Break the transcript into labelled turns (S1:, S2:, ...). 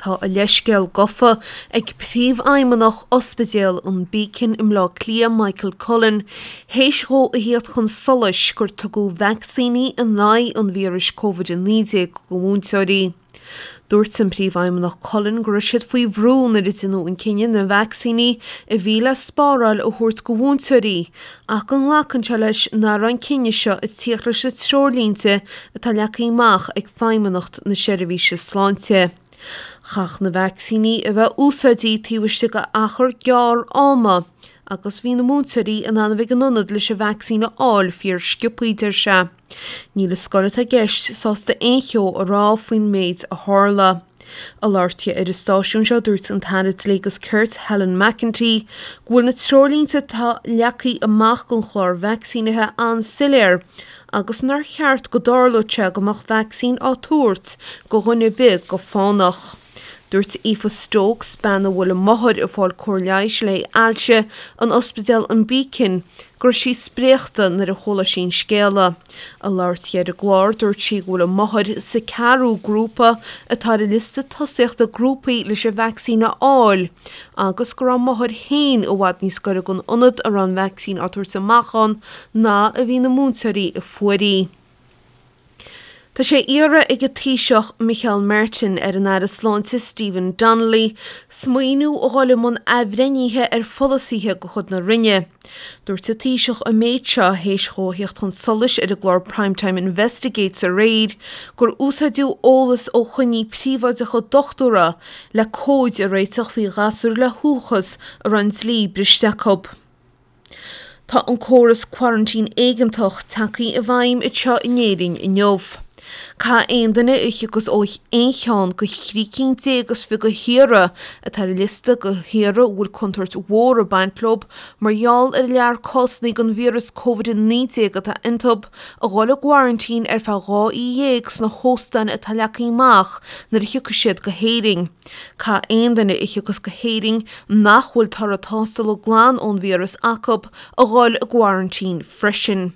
S1: Tá a leithscéal gofa ag Príomhfheidhmeannach Ospidéal an Beacon i mBleá Cliath, Michael Cullen, théis dhó a theacht chun solais gur tugadh vacsaíní in aghaidh an víris Covid-19 go mhúinteoirí. Dúirt an Príomhfheidhmeannach Cullen go raibh siad faoi bhrú nuair a deineadh an cinneadh na vacsaíní a bhí le spáráil a thabhairt go mhúinteoirí ach go nglacann sé leis nach raibh an cinneadh seo ag tíocht leis na treoirlínte atá leagtha amach ag Feidhmeannacht na Seirbhíse Sláinte. Chaithfeadh na vacsaíní a bheith úsáidte taobh istigh d'achar gearr ama agus bhí na múinteoirí in ann a bheith ag an ionad leis an vacsaín a fháil fíor sciobthaí, deir sé. Níl an scoil atá i gceist sásta aon cheo a rá faoin méid a tharla. Ag labhairt di ar an stáisiún seo, dúirt an tAire Dlí agus Cirt, Helen McEntee, go bhfuil na treoirlínte atá leagtha amach don chlár vacsaínithe an-soiléir agus nár cheart go dtarlódh sé go mbeadh vacsaín á tabhairt go dhuine ar bith go fánach. Dúirt Aoife Stokes, bean a bhfuil a máthair ag fáil cóir leighis le haghaidh ailse in Ospidéal an Beacon, go raibh sí spréachta nuair a chuala sí an scéala. Ag labhairt di ar an gclár, dúirt sí go bhfuil a máthair sa ceathrú grúpa atá ar an liosta tosaíochta grúpaí leis an vacsaín a fháil agus go raibh a máthair féin i bhfad níos gaire don ionad a raibh an vacsaín á tabhairt amach ann ná a bhí na múinteoirí a fuair í. Tá sé iarrtha ag an Taoiseach Micheál Martin ar an Aire Sláinte Stephen Donnelly smaoineamh a dhul i mbun athbhreithnithe ar pholasaithe de chuid na Roinne. Dúirt an Taoiseach an méid seo théis dhó a theacht chun solais ar an gclár Prime Time Investigates aréir gur úsáideadh eolas ó choinní príobháideacha dochtúra le comhaid a réiteach faoi ghasúir le huathachas a raibh an dlí briste acu. Tá an córas quarantine éigeantach tagtha i bhfeidhm anseo in Éirinn inniu. Caithfidh aon duine a thiocfas ó aon cheann de thrí cinn déag is fiche de thíortha atá ar an liosta de thíortha a bhfuil contúirt mhór ag baint leo mar gheall ar an lear cásanna den víreas Covid-19 atá iontu, a dhul i gquarantín ar feadh 12 oíche sna hóstáin atá leagtha amach nuair a thiocfaidh siad go hÉirinn. Caithfidh aon duine a thiocfas go hÉirinn nach bhfuil toradh tástála glan ón víreas acu a dhul i gquarantín freisin.